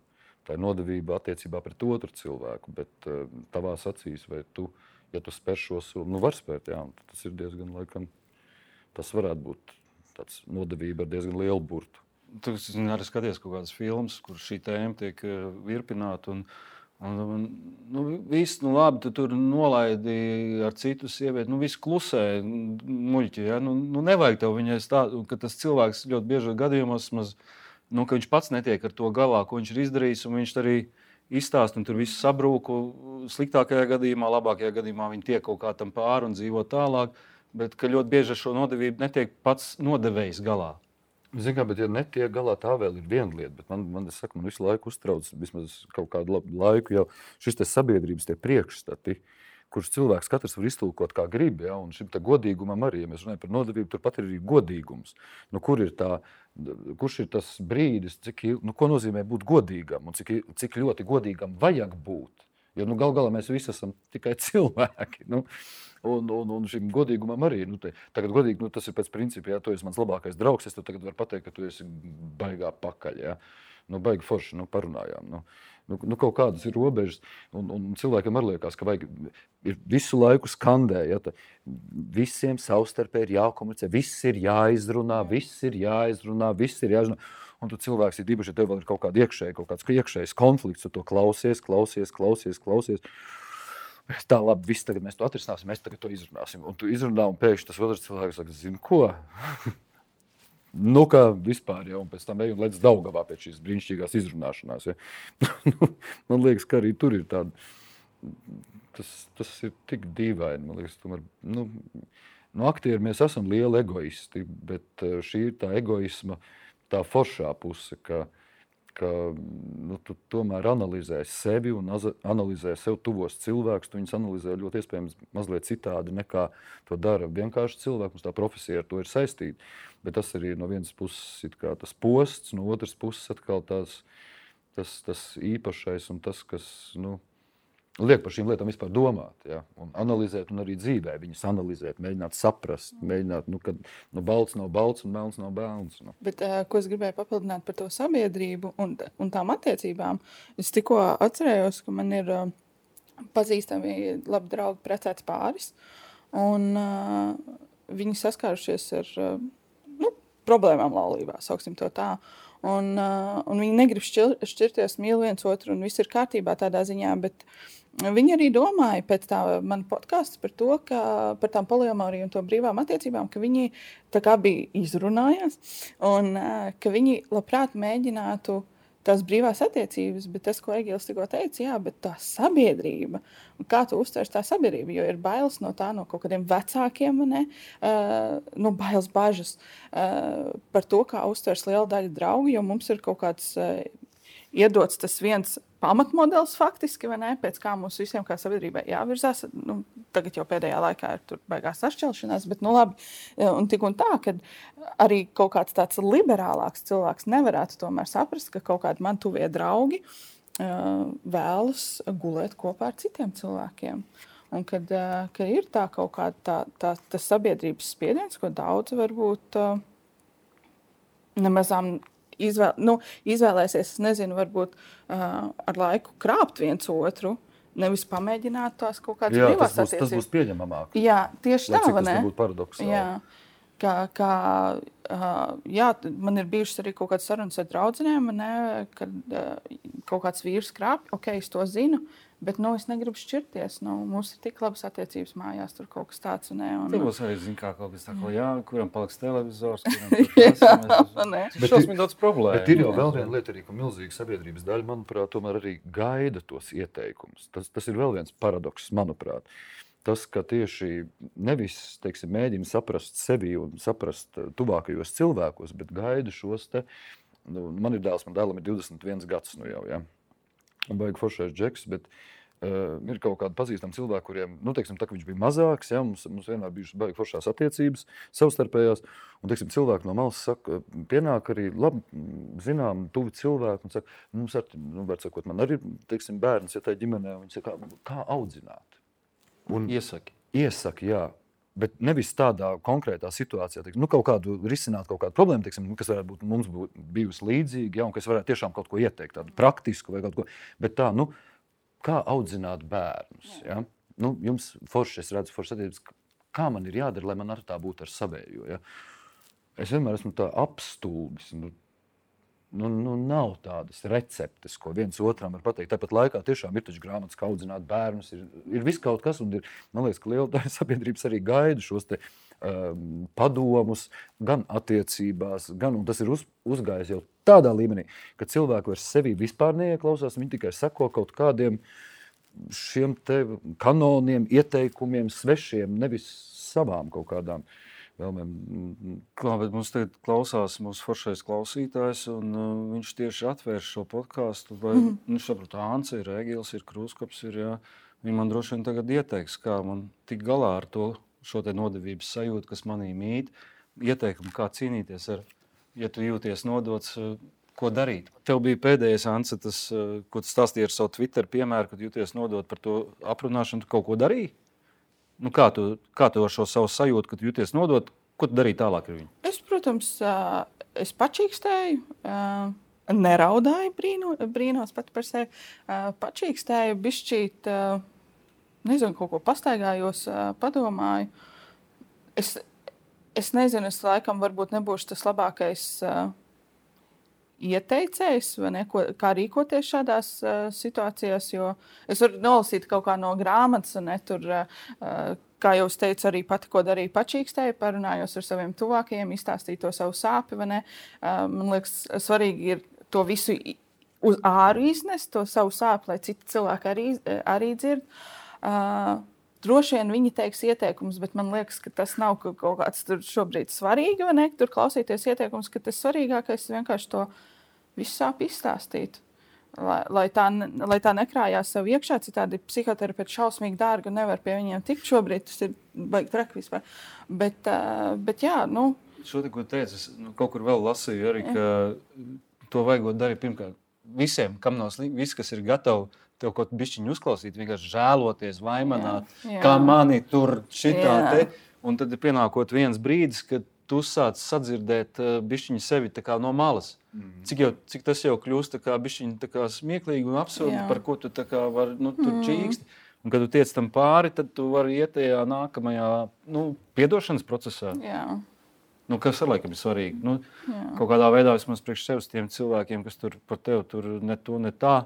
Tā ir nodevība attiecībā pret otru cilvēku, bet tavās acīs, vai tu, ja tu spēr šo soli, var spērt, jā, tas ir diezgan, laikam, tas varētu būt tāds nodevība ar diezgan lielu burtu. Tu arī skaties kaut kādas filmas, kur šī tēma tiek virpināta, viss, labi, tu tur nolaidi ar citu sievieti, viss klusē, muļķi, ja? Nevajag tev viņai stāstīt, ka tas cilvēks ļoti bieži gadījumos ka viņš pats netiek ar to galā, ko viņš ir izdarījis, un viņš arī izstāst, un tur viss sabrūk. Sliktākajā gadījumā, labākajā gadījumā viņi tiek kaut kā tam pāri un dzīvo tālāk, bet ka ļoti bieži ar šo nodevību netiek pats nodevējs galā. Zini kā, bet ja netiek galā, tā vēl ir viena lieta, bet man visu laiku uztrauc, vismaz kaut kādu laiku jau šis te sabiedrības tie priekšstati, kurš cilvēks katrs var iztulkot kā grib, ja, un šim godīgumam arī, ja mēs runājam par nodevību, turpat ir arī godīgums. Kurš ir tas brīdis, ko nozīmē būt godīgam un cik ļoti godīgam vajag būt? Jo gal galā mēs visi esam tikai cilvēki. Un šim godīgumam arī. Tagad godīgi, tas ir pēc principa, ja tu esi mans labākais draugs, es tev tagad varu pateikt, ka tu esi baigā pakaļ. Ja. Baigi forši, parunājām. Kaut kādas ir robežas, un cilvēkam arī liekas, ka vajag ir visu laiku skandē, ja, visiem savstarpēji ir jākomunicē, viss ir jāizrunā, un tu cilvēks ir īpaši, ja tev vēl ir kaut kāds iekšējs konflikts, tu to klausies. Tā labi, viss tagad mēs to atrisināsim, mēs tagad to izrunāsim, un tu izrunā, un pēkšņi tas otrs cilvēks saka, zini ko? Kā vispār, ja, un pēc tam ej un lec Daugavā pēc šīs brīnišķīgās izrunāšanās. Ja. Man liekas, ka arī tur ir tāda, tas ir tik dīvaini, man liekas, tomēr, aktieri mēs esam lieli egoisti, bet šī ir tā egoisma, tā foršā puse, ka tu tomēr analizē sevi un analizē sev tuvos cilvēkus, tu viņus analizē ļoti iespējams mazliet citādi nekā to dara vienkārši cilvēki, mums tā profesija ar to ir saistīta, bet tas arī no vienas puses ir kā tas posts, no otras puses atkal tas īpašais un tas, kas, liek par šīm lietām vispār domāt, ja, un analizēt un arī dzīvē viņas analizēt, mēģināt saprast, kad balts nav balts un melns nav melns. Bet, ko es gribēju papildināt par to sabiedrību un tām attiecībām, es tikko atcerējos, ka man ir pazīstami labi draugi precēts pāris, un viņi saskārušies ar problēmām laulībā, sauksim to tā. Un viņi negrib šķirties, mīl viens otru, un viss ir kārtībā tādā ziņā, bet viņi arī domāja pēc tā man podcasts par to, par tām poliamoriju un to brīvām attiecībām, ka viņi tā kā bija izrunājās, un ka viņi labprāt mēģinātu tās brīvās attiecības, bet tas, ko Egils tikko teica, jā, bet tā sabiedrība, kā tu uztvers tā sabiedrība, jo ir bailes no tā, no kaut kādiem vecākiem, bailes bažas par to, kā uztvers liela daļa draugu, jo mums ir kaut kāds iedots tas viens pamatmodelis faktiski, pēc kā mums visiem kā sabiedrībai jāvirzās. Tagad jau pēdējā laikā ir tur baigās sašķelšanās, bet labi. Un tik un tā, ka arī kaut kāds tāds liberālāks cilvēks nevarētu tomēr saprast, ka kaut kādi man tuvie draugi vēlas gulēt kopā ar citiem cilvēkiem. Un kad ir tā kaut kāda tā sabiedrības spiediens, ko daudz varbūt nemazām izvēlēsies, es nezinu, varbūt ar laiku krāpt viens otru, nevis pamēģināt tās kaut kādas brīvās attiecības. Tas būs pieņemamāk. Jā, tieši tā, vai ne? Tas nebūtu paradoksāli. Jā, man ir bijušas arī kaut kādas sarunas ar draudzenēm, kad kaut kāds vīrs krāpj, es to zinu, bet es negribu šķirties. Mums ir tik labas attiecības mājās, tur kaut kas tāds. Tur būs arī kaut kas tāds, kuram paliks televizors, kuram tas šausmīgi daudz problēmu. Bet ir jau vēl viena lieta, arī, ka milzīga sabiedrības daļa, manuprāt, tomēr arī gaida tos ieteikumus. Tas ir vēl viens paradoks, manuprāt. Tas, ka tieši nevis, mēģina saprast sevi un saprast tuvākajos cilvēkos, bet gaida šos te, man ir dēls, man dēlam ir 21 gads jau, ja. Un baigi foršais džeks, bet Ir kaut kādi pazīstami cilvēki, kuriem, teiksim, tā, viņš bija mazāks, ja, mums vienmēr bijušas baigi foršās attiecības, savstarpējās, un, teiksim, cilvēki no malas saka, pienāk arī labi, zinām, tuvi cilvēki, un saka, mums var sakot, man arī, teiksim, bērns, ja tā ģimenē, viņi saka, kā audzināt? Un iesaki, jā. Bet nevis tādā konkrētā situācijā, teiksim, kaut kādu risināt kaut kādu problēmu, teiksim, kas varētu būt mums bijusi līdzīga, ja, un kas varētu tiešām kaut ko ieteikt, tādu praktisku vai kaut ko. Bet tā, kā audzināt bērnus? Ja? Jums forši, es redzu forši attiecības, kā man ir jādara, lai man ar tā būtu ar savējo. Ja? Es vienmēr esmu tā apstulbis. Nav tādas receptes, ko viens otram var pateikt. Tāpat laikā tiešām ir taču grāmatas, kā audzināt bērnus. Ir viss kaut kas, un man liekas, ka liela daļa sabiedrības arī gaida šos te padomus, gan attiecībās, un tas ir uzgājis jau tādā līmenī, ka cilvēki vairs sevi vispār neieklausās, viņi tikai seko kaut kādiem šiem te kanoniem, ieteikumiem, svešiem, nevis savām kaut kādām vēlmēm. Bet mums tagad klausās mūsu foršais klausītājs, un viņš tieši atvērš šo podcastu, vai viņš saprot, Ānce ir, Egils ir, Krūskops ir, jā. Viņi man droši vien tagad ieteiks, kā man tik galā ar šo te nodevības sajūtu, kas manī mīt, ieteikumu, kā cīnīties ar, ja tu jūties nodots, ko darīt. Tev bija pēdējais, Ānce, tas, ko tu stāstīji ar savu Twitter piemēru, kad jūties nodot par to aprunāšanu, tu kaut ko darīji? Kā tu ar šo savu sajūtu, kad jūties nodot, ko tu darīji tālāk ar viņu? Es, protams, es pačīkstēju, neraudāju, brīnos pat par sevi, pačīkstēju, bišķīt, nezinu, kaut ko pastaigājos, padomāju. Es nezinu, es laikam varbūt nebūšu tas labākais ieteicējs, vai ne, kā rīkoties šādās situācijās, jo es varu nolasīt kaut kā no grāmatas, un tur, kā jau es teicu, arī pati, ko darīju, pačīkstēju, parunājos ar saviem tuvākajiem, izstāstīju to savu sāpi, vai ne. Man liekas, svarīgi ir to visu uz āru iznest, to savu sāpi, lai citi cilvēki arī dzird. Droši vien viņi teiks ieteikumus, bet man liekas, ka tas nav kaut kāds tur šobrīd svarīgi, vai ne? Tur klausīties ieteikumus, ka tas svarīgākais ir vienkārši to visu sāp izstāstīt. Lai tā nekrājās sev iekšā, citādi psihoterapeiti šausmīgi dārgi un nevar pie viņiem tikt šobrīd, tas ir baigi traki vispār. Bet jā, Šo te, ko teicu, es kaut kur vēl lasīju arī, ka to vajagot darīt pirmkārt visiem, kam nav slikti, visi, kas ir gatavi tev kaut bišķiņu uzklausīt, vienkārši žēloties, vaimanāt, kā mani tur šitā te. Un tad ir pienākot viens brīdis, kad tu sāc sadzirdēt bišķiņu sevi tā kā no malas. Cik tas jau kļūst tā kā bišķiņu tā kā smieklīgi un absurdi, par ko tu tā kā var, tur čīksti. Un kad tu tiec tam pāri, tad tu vari iet tajā nākamajā, piedošanas procesā. Jā. Kas ar laikam ir svarīgi. Kaut kādā veidā vismaz priekš sevis tiem cilvēkiem, kas tur par tevi tur ne to, ne tā.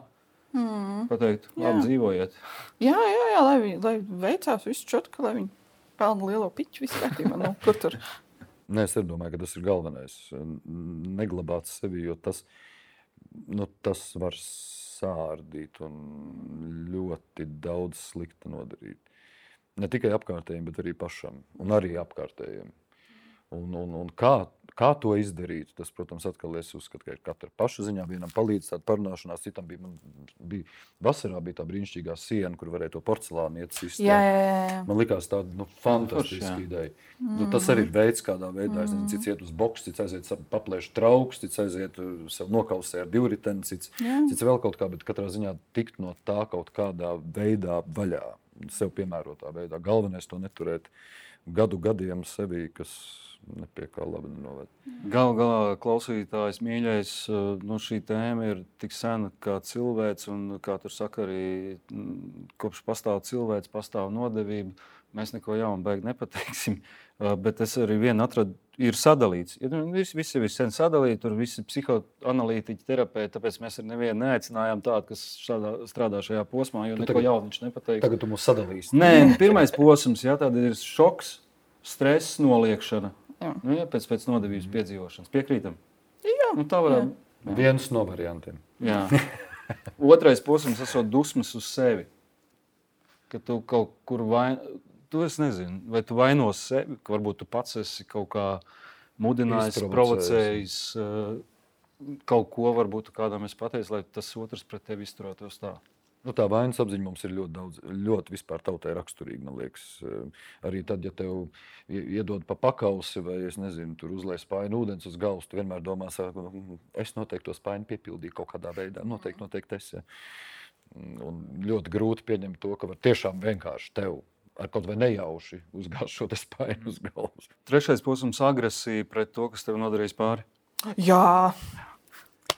Pateikt, labi dzīvojiet. Jā, lai veicās visu čotku, lai viņi pelna lielo piķu visu kārtībā. Kur tur? Nē, es domāju, ka tas ir galvenais. Neglabāt sevi, jo tas var sārdīt un ļoti daudz slikta nodarīt. Ne tikai apkārtējiem, bet arī pašam un arī apkārtējiem. Un kā to izdarīt, tas, protams, atkal es uzskatu, ka ir katra paša ziņā. Vienam palīdz tāda parunāšanās, citam vasarā bija tā brīnišķīgā siena, kur varēja to porcelānu iet sist. Jā. Man likās tāda fantastiska ideja. Tas arī ir veids, kādā veidā. Es nezinu, cits iet uz boksu, cits aiziet paplēš trauks, cits aiziet sev nokausē ar divriteni, cits vēl kaut kā, bet katrā ziņā tikt no tā kaut kādā veidā vaļā, sev piemērotā veidā. Galvenais to neturēt gadiem sevi, kas nepie kā labi nenoved. Galā klausītājs mīļais, šī tēma ir tik sena kā cilvēks, un kā tur saka arī, kopš pastāv cilvēks, pastāv nodevība. Mēs neko jaunu baigi nepateiksim, bet es arī vienu atradu, ir sadalīts. Visi ir sen sadalīti, tur visi psihoanalītiķi, terapeiti, tāpēc mēs ar nevienu neaicinājām tādu, kas strādā šajā posmā, jo neko jaunu viņš nepateiks. Tagad tu mūs sadalīsi. Nē, pirmais posms, tāda ir šoks, stress, noliekšana. Pēc nodevības piedzīvošanas. Piekrītam? Jā. Tā varētu. Viens no variantiem. Jā. Otrais posms esot dusmas uz sevi. Ka tu kaut kur tu es nezinu, vai tu vainos sevi, ka varbūt tu pats esi kaut kā mudinājis, provocējis kaut ko, varbūt kādam es pateicu, lai tas otrs pret tevi izturētos tā. Nu, tā vainas apziņa mums ir ļoti daudz, ļoti vispār tautai raksturīga, man liekas. Arī tad, ja tev iedod pa pakausi vai, es nezinu, tur uzliek spainu ūdens uz galvas, tu vienmēr domā, es noteikti to spainu piepildīju kaut kādā veidā. Noteikti es. Ja. Un ļoti grūti pieņemt to, ka var tiešām vienkārši tev ar kaut vai nejauši uzgāzt šo spainu uz galvas. Trešais posms - agresija pret to, kas tev nodarījis pāri. Jā.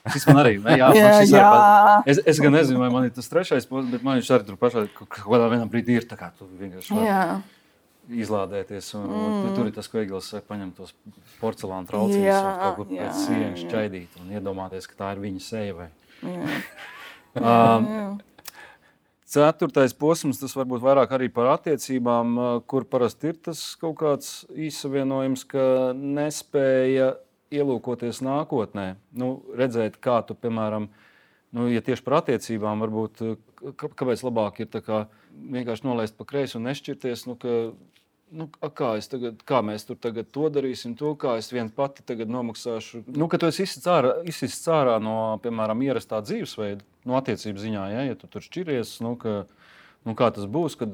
Šis man arī, ne? Es gan nezinu, vai man ir tas trešais posms, bet man viņš arī tur pašā kaut kādā vienā brīdī ir tā kā tu vienkārši vari izlādēties. Un tur ir tas, ko Egils saka, paņem tos porcelāna traucīņus un kaut kur pēc sienas šķaidīt un iedomāties, ka tā ir viņa seja. Vai. Ceturtais posms, tas varbūt vairāk arī par attiecībām, kur parasti ir tas kaut kāds īsavienojums, ka nespēja ielūkoties nākotnē, redzēt, kā tu, piemēram, ja tieši par attiecībām, varbūt, kāpēc labāk ir tā kā vienkārši nolaist pa kreisi un nešķirties, kā mēs tur tagad to darīsim, kā es vien pati tagad nomaksāšu. Ka tu esi izsists ārā no, piemēram, ierastā dzīvesveida, no attiecību ziņā, ja tu tur šķiries, kā tas būs, kad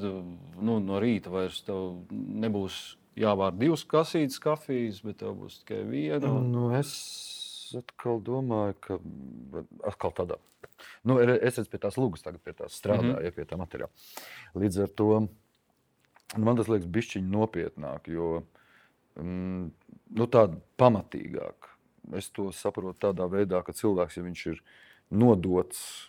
no rīta vairs tev nebūs jāvār 2 kasītes kafijas, bet tev būs tikai viena. Es atkal domāju, ka atkal tādā. Es redzu pie tās lūgas tagad, pie tās strādāju, pie tā materiāla. Līdz ar to man tas liekas bišķiņ nopietnāk, jo tāda pamatīgāk. Es to saprotu tādā veidā, ka cilvēks, ja viņš ir nodots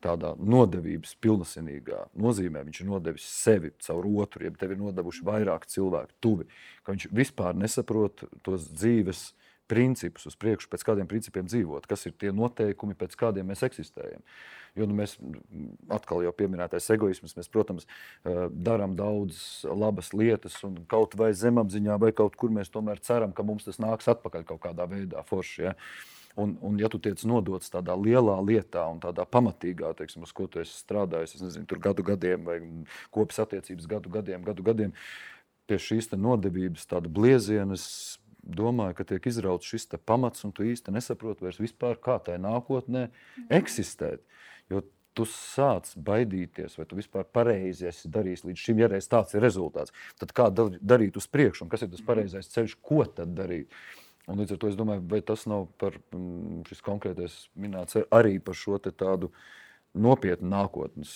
tādā nodevības pilnasinīgā nozīmē, viņš ir nodevis sevi caur otru, ja tev ir nodevuši vairāk cilvēku tuvi, ka viņš vispār nesaprot tos dzīves principus uz priekšu, pēc kādiem principiem dzīvot, kas ir tie noteikumi, pēc kādiem mēs eksistējam. Jo mēs atkal jau pieminētais egoisms, mēs, protams, darām daudz labas lietas un kaut vai zemapziņā vai kaut kur mēs tomēr ceram, ka mums tas nāks atpakaļ kaut kādā veidā forši, ja. Un ja tu tiec nodots tādā lielā lietā un tādā pamatīgā, teiksim, uz ko tu esi strādājis, es nezinu, tur gadu gadiem vai kopis attiecības gadu gadiem, pie šīs te nodevības tāda blieziena, es domāju, ka tiek izrauts šis te pamats un tu īsti nesaproti vairs vispār, kā tai nākotnē eksistēt. Jo tu sāc baidīties, vai tu vispār pareizi esi darījis līdz šim, ja reiz tāds ir rezultāts. Tad kā darīt uz priekšu un kas ir tas pareizais ceļš, ko tad darīt? Un līdz ar to es domāju, vai tas nav par šis konkrētais minēts arī par šo te tādu nopietnu nākotnes,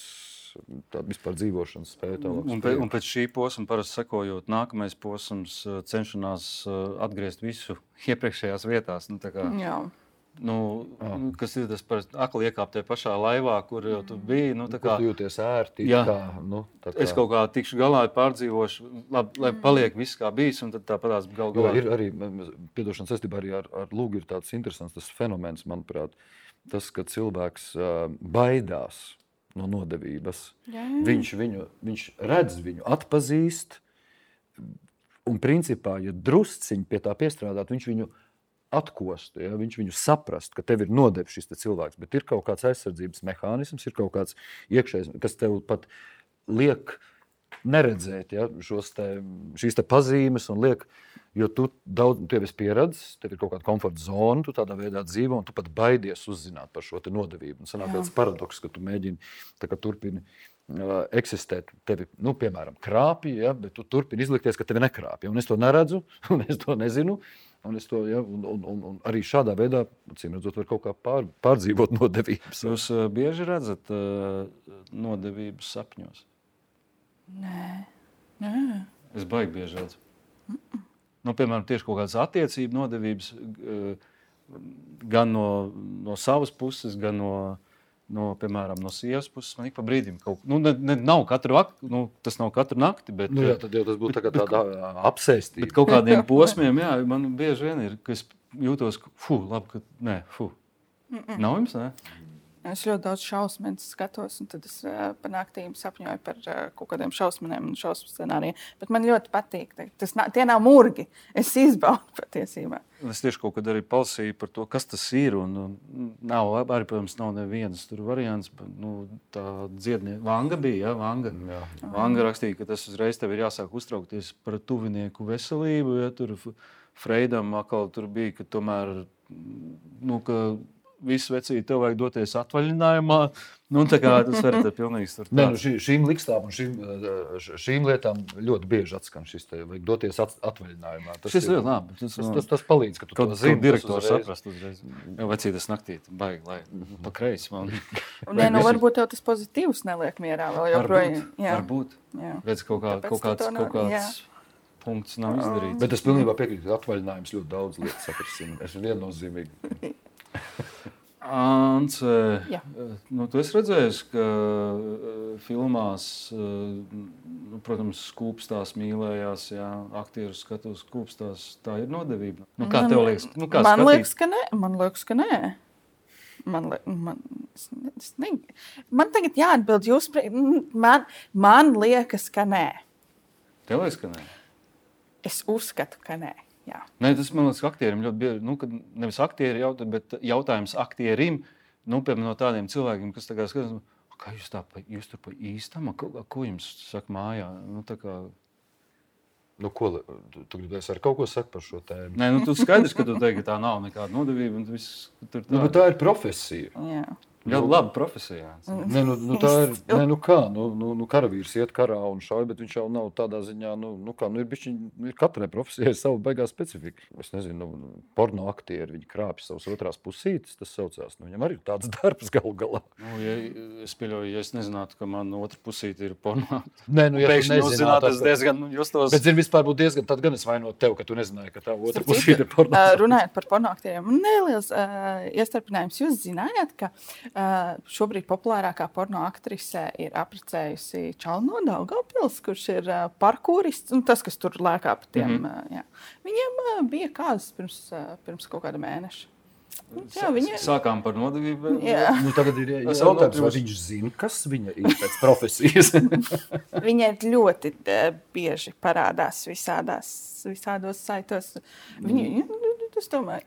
tādu vispār dzīvošanas spēju. Un pēc šī posma parasti sekojot, nākamais posms cenšanās atgriezt visu iepriekšējās vietās. Kas ir tas par akli iekāpt tajā pašā laivā, kur jau tu biji. Kur tu jūties ērti. Es kaut kā tikšu galā, pārdzīvošu, lai paliek viss kā bijis, un tad tāpatās galā. Ir arī, piedošanas saistībā arī ar lūgu ir tāds interesants tas fenomens, manuprāt, tas, ka cilvēks baidās no nodevības. Viņš redz viņu, atpazīst, un principā, ja drusciņi pie tā piestrādāt, viņš viņu atkostu, ja? Viņš viņu saprast, ka tev ir nodevis šis cilvēks, bet ir kaut kāds aizsardzības mehānisms, ir kaut kāds iekšējs, kas tev pat liek neredzēt, ja? Šīs te pazīmes un liek, jo tu tev esi pieredzis, tev ir kaut kāda komforta zona, tu tādā veidā dzīvo un tu pat baidies uzzināt par šo te nodevību. Un sanāk tāds paradoks, ka tu mēģini turpini eksistēt, tevi, piemēram, krāpji, ja? Bet tu turpini izlikties, ka tevi nekrāpja. Un es to neredzu, un es to nezinu. Un arī šādā veidā, acīm redzot, var kaut kā pārdzīvot nodevības. Jūs bieži redzat nodevības sapņos? Nē. Es baigi bieži redzu. Piemēram, tieši kaut kādas attiecību nodevības gan no savas puses, gan piemēram, no sievas puses. Man ik pa brīdim kaut nav katru tas nav katru nakti, bet tad jau tas būtu tāda apsēstība. Bet kaut kādiem posmiem, man bieži vien ir, ka es jūtos, Nav jums, ne? Es ļoti daudz šausmas skatos, un tad es par naktīm sapņoju par kaut kādiem šausmiem un šausmu scenārijiem. Bet man ļoti patīk. Tie nav murgi. Es izbaudu patiesībā. Es tieši kaut kad arī palasīju par to, kas tas ir. Arī, protams, nav nevienas tur variants. Tā dziednieka Vanga bija. Ja? Vanga rakstīja, ka tas uzreiz tev ir jāsāk uztraukties par tuvinieku veselību. Ja? Tur Freidam atkal tur bija, ka tomēr... ka visu vecīti, tev vajag doties atvaļinājumā. Nu, tā kā tas var būt pilnīgi tur. Nē, šīm likstām un šīm lietām ļoti bieži atskan šis te vajag doties atvaļinājumā. Šis ļoti labi. Tas palīdz, ka tu to zini. Direktors saprast uzreiz. Jau vecītas naktī, baigi, lai pa kreisi man. Nē, nu varbūt tev tas pozitīvs neliek mierā vēl joprojām. Varbūt. Redz, kaut kāds punkts nav izdarīts. Bet es pilnībā piekrītu, ka atvaļinājums ļoti daudz lietas sakrasina. Es viennozīmīgi. Ants, nu, tu esi redzējis, ka filmās, protams, skūpstās, mīlējās, aktieru skatos skūpstās. Tā ir nodevība. Nu, kā tev liekas? Nu, kā man liekas, ka nē. Man tagad jāatbild jūs. Man liekas, ka nē. Tev liekas, ka nē? Es uzskatu, ka nē. Jā. Nē, tas man liekas, ka aktierim ļoti bieži, nu, kad nevis aktieri jautā, bet jautājums aktierim, nu, piemēram, no tādiem cilvēkiem, kas tā kā skatās, kā jūs tur pa īstam, ko jums saka mājā? Nu, tā kā... Nu, ko, tu gribēsi ar kaut ko sakt par šo tēmu? Nē, nu, tu skaidrs, ka tu teiksi, ka tā nav nekāda nodevība, un viss tur tā. Nu, bet tā ir profesija. Jā. Ļoti laba profesija. Nē, nu tā ir, nu kā, karavīrs iet karā un šauj, bet viņš jau nav tādā ziņā, ir katrai profesijai savu baigā specifika. Es nezinu, porno aktieri, viņi krāpj savus otrās pusītes, tas saucās, viņam arī ir tāds darbs galu galā. Nu, es pieļauju, ja es nezinātu, ka man otra pusīte ir porno. Nē, nu, ja pēkšņi jūs zināt, tas diezgan justos. Bet, vispār būtu diezgan, tad gan es vainot tev, ka tu nezināji, ka tā otra pusīte ir porno. Runājot par porno aktieriem, neliels iestarpinājums. Jūs zinājāt, ka šobrīd populārākā porno aktrise ir apprecējusi Čalu no Daugavpils, kurš ir parkūrists, un tas, kas tur lēkā pa tiem. Jā. Viņiem bija kāzas pirms kaut kāda mēneša. Jā, Sākām par nodevību. Nu, tagad ir jautājums, vai viņš zina, kas viņa ir pēc profesijas. Viņa ļoti bieži parādās visādos saitos. Es domāju,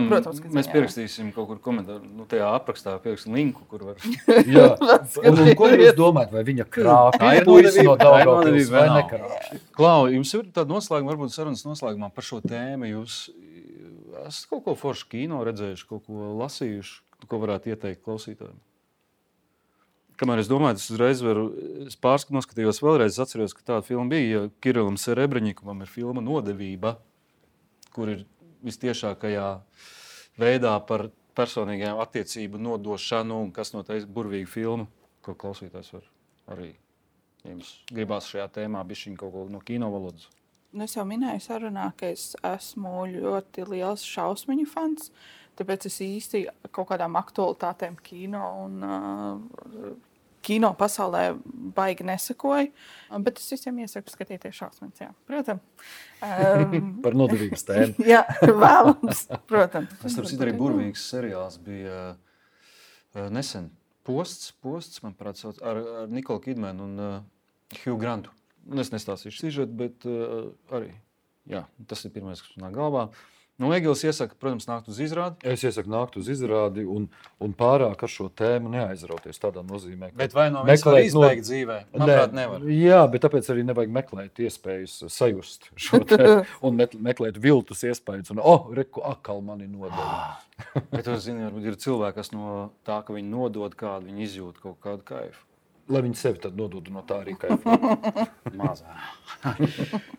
protams, ka mēs pierakstīsim kaut kur komentāru, tajā aprakstā pierakstīsim linku, kur var... Jā, un ko jūs domājat, vai viņa krāpja puisi no Daugavpils vai nekrāpja? Klau, jums ir tāda noslēguma, varbūt sarunas noslēgumā par šo tēmu. Jūs esat kaut ko foršu kino redzējuši, kaut ko lasījuši, ko varētu ieteikt klausītājiem? Kamēr es domāju, es noskatījos vēlreiz, atceros, ka tāda filma bija, ja Kirilam Serebreņikumam ir filma Nodevība, kur ir vistiešākajā veidā par personīgajām attiecību nodošanu un kas no tā ir burvīga filma, ko klausītājs var arī, ja jums gribās šajā tēmā bišķiņ kaut ko no kino valodas. Es jau minēju sarunā, ka es esmu ļoti liels šausmiņu fans, tāpēc es īsti kaut kādām aktualitātēm kino un kino pasaulē baigi nesakoju, bet es visiem iesaku skatīties šausmas, jā. Protams. Par nodevības tēmu. Jā, vēlams, protams. Tas arī burvīgs seriāls bija nesen. Posts, manuprāt, ar Nikolu Kidmanu un Hugh Grantu. Es nestāstīšu sižetu, bet arī, jā, tas ir pirmais, kas nāk galvā. Nu, Egils iesaka, protams, nākt uz izrādi. Es iesaku nākt uz izrādi un pārāk ar šo tēmu neaizrauties tādā nozīmē. Bet vai no viens var izbeigt dzīvē? Manuprāt, nevar. Jā, bet tāpēc arī nevajag meklēt iespējas sajust šo tēmu un meklēt viltus iespējas. Un, reku, akal mani nodeva. Bet tu zini, varbūt ir cilvēki, kas no tā, ka viņi nodod kādu, viņi izjūt kaut kādu kaifu. Lai viņi sevi tad nodod no tā arī kaifu. Mazā.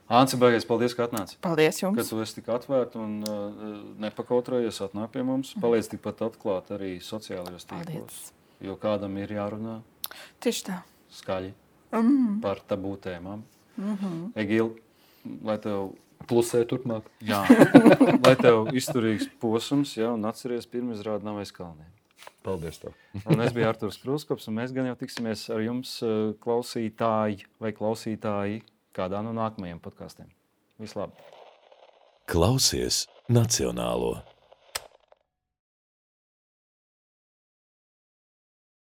Anci, baigies, paldies, ka atnāci. Paldies jums. Ka tu esi tik atvērta un nepakautrējies, atnāk pie mums. Paliec tikpat atklāt arī sociālajos tīklos. Jo kādam ir jārunā. Tieši tā. Skaļi. Par tabū tēmām. Egil, lai tev... Plusē turpmāk. Jā. Lai tev izturīgs posms, jā, un atceries pirmizrādi nav aiz kalniem. Paldies tev. Un es biju Arturs Krūskops, un mēs gan jau tiksimies ar jums klausītāji vai klausītāji kādā no nākamajiem podkastiem. Vislabāk! Klausies Nacionālo!